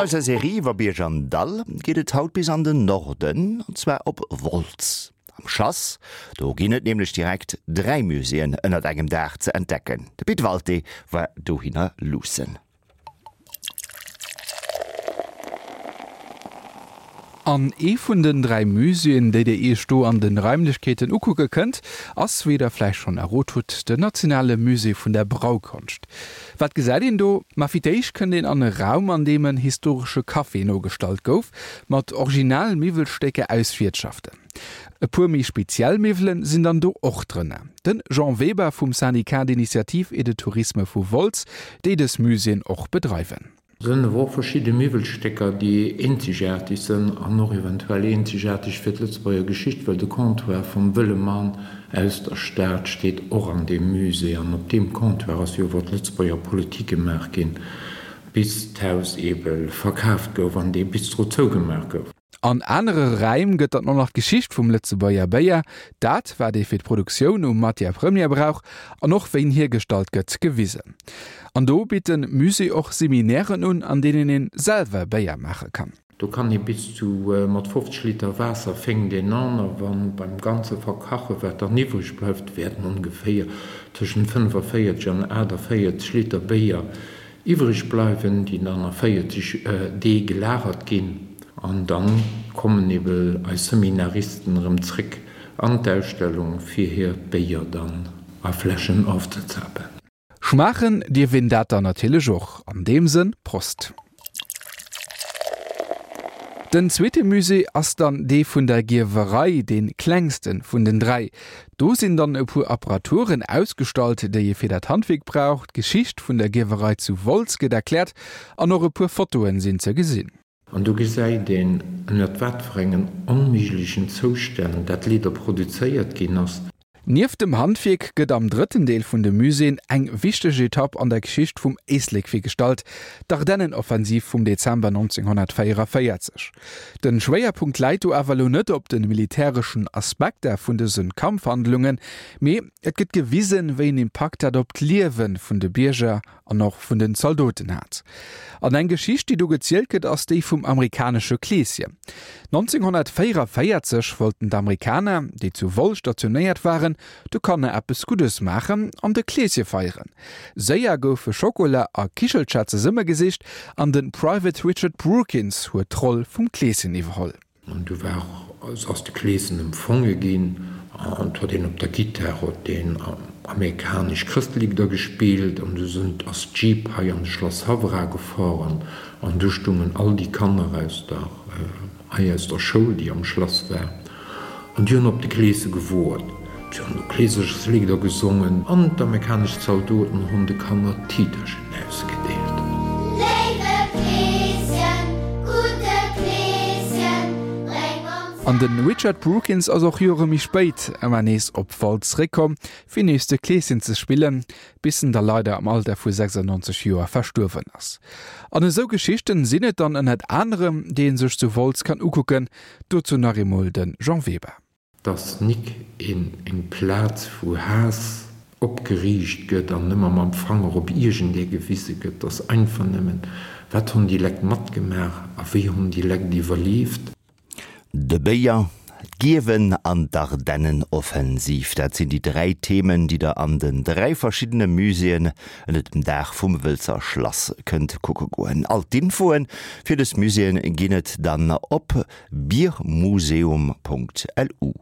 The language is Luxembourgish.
An eiser Serie iwwer Bierg an Dall geet et haut bis an den Norden, an zwar op Wolz. Am Schlass, do ginn et nämlech direkt 3 Muséeën ënnert engem Daach ze entdecken. De Pit Walté war dohinner luussen. An ee vun den 3 Muséeën, déi dir iech do an de Raimlechkeeten ukucke kënnt, ass, wéi der vläicht schonn errot hutt, den Nationale Musée vun der Braukonscht. Wat gesäit een do? Ma fir d'éischt kënnt een an e Raum, an deem en historesche Café nogestallt gouf, mat original Miwwelstécker aus Wiertschaften. E puer méi speziell Miwwelen sinn dann do och drënner. De Jean Weber vum Syndicat d'initiative et de tourisme vu Wolz, déi dës Muséeën och bedreiwen. Sënn awer och verschidde Miwwelstécker, déi eenzegaarteg sënn an och eventuell eenzegaarteg fir d'Lëtzebuerger Geschicht, well de Comptoir vum Wëlle Mann aus der Stad steet och an deem Musée an op deem Comptoir ass jo iwwer d'Lëtzebuerger Politik gemaach ginn, bis d'Haus eebe verkaaft gouf an dee Bistro zougemaach gouf. An anere Räim gëtt dann och nach d'Geschicht vum Lëtzebuerger Béier, dat wat ee fir d'Produktioun u Matière première brauch an och wéi en hiergestallt gëtt, gewisen. An do bitt de Musée och Seminairen un, an deenen een selwer Béier maache kann. Do kann ee bis zu mat 50 Liter Waasser fénkt een an, a wann beim ganze Verkache wat dann iwwreg bleift, wäerten ongeféier tëschent 45 an 48 Liter Béier Iwwreg bleiwen, déi dann a 40 Dee gelagert ginn. An dann kommen ebe eis Seminaristen erëm zréck an d'Ausstellung fir hiert Béier dann a Fläschen ofzezapen. Schmaachen dierf een dat dann natierlech och. An deem Sënn, Prost! Den zweete Musée ass dann dee vun der Gierwerei, dee klengste vun den 3. Do sinn dann e puer Apparaturen ausgestallt, déi ee fir dat Handwierk brauch, d'Geschicht vun der Gierwerei zu Wolz gëtt erkläert an och e puer Fotoen sinn ze gesinn. An do gesäit een, ënnert wat fir engen onméiglechen Zoustänn dat Lieder produzéiert ginn ass. Nieft dem Handwierk gëtt am drëtten Deel vun de Muséeën eng wichteg Etapp an der Geschicht vum Éislek virgestallt, d'Ardennenoffensiv vum Dezember 1944. Den Schwéierpunkt läit do awer elo net op de militäreschen Aspekter vun dëse Kampfhandlungen, mee et gëtt gewisen, wéi en Impakt dat op d'Liewe vun de Bierger an och vun den Zaldoten hat. An eng Geschicht, déi do gezielt gëtt, ass déi vum amerikanesche Kleeschen. 1944 wollten d'Amerikaner, déi zu Woll stationéiert waren, de Kanner eppes Guddes maachen an de Kleesche feieren. Séier goufe Schokola a Kichelcher zesummegesicht an de Private Richard Brookins huet d'Roll vum Kleeschen iwwerholl. An du war, ass de Kleeschen empfonge ginn an 't huet een op der Gittar huet deen amerikanesch Chrëstligder gespillt an du sënn, ass d'Jeep hei an de Schlass Haff era gefahren an du stungen all déi Kanner aus der, hei aus der Schoul, déi am Schlass war an déi hunn op de Kleesche gewoart. Si hunn do Kleeserchesligder gesongen an d'amerikanesch Zaldoten hunn de Kanner Tiiterchen ausgedeelt. Léiwe Kleeschen, gudde Kleeschen, bréng ons. An de Richard Brookins ass och Jore méi spéit ëmmer nees op Wolz zeréckkomm, fir nees de Kleeschen ze spillen, bis en da leider am Alter vu 96 Joer verstuerwen ass. An esou Geschichten sinn et dann ënnert anerem, déi ee sech zu Wolz kann ukucken. Dozou nach eemol de Jean Weber. Dass nik een eng Plaz wou Haass opgeriicht gëtt an ëmmer mam Fanger op iergendee gewise gëtt, dass einfach nëmmen, wat honn déi Lekt matgemaach a wéi honn déi Lekt iwwerlieft. De Béier, d'Gierwen an d'Ardennenoffensiv, dat sinn déi 3 Themen, déi der an den 3 verschiddene Muséeën ënnert dem Daach vum Wëlzer Schlass kënnt kucke goen. All d'Infoe fir dës Muséeën ginn et dann op biermuseum.lu.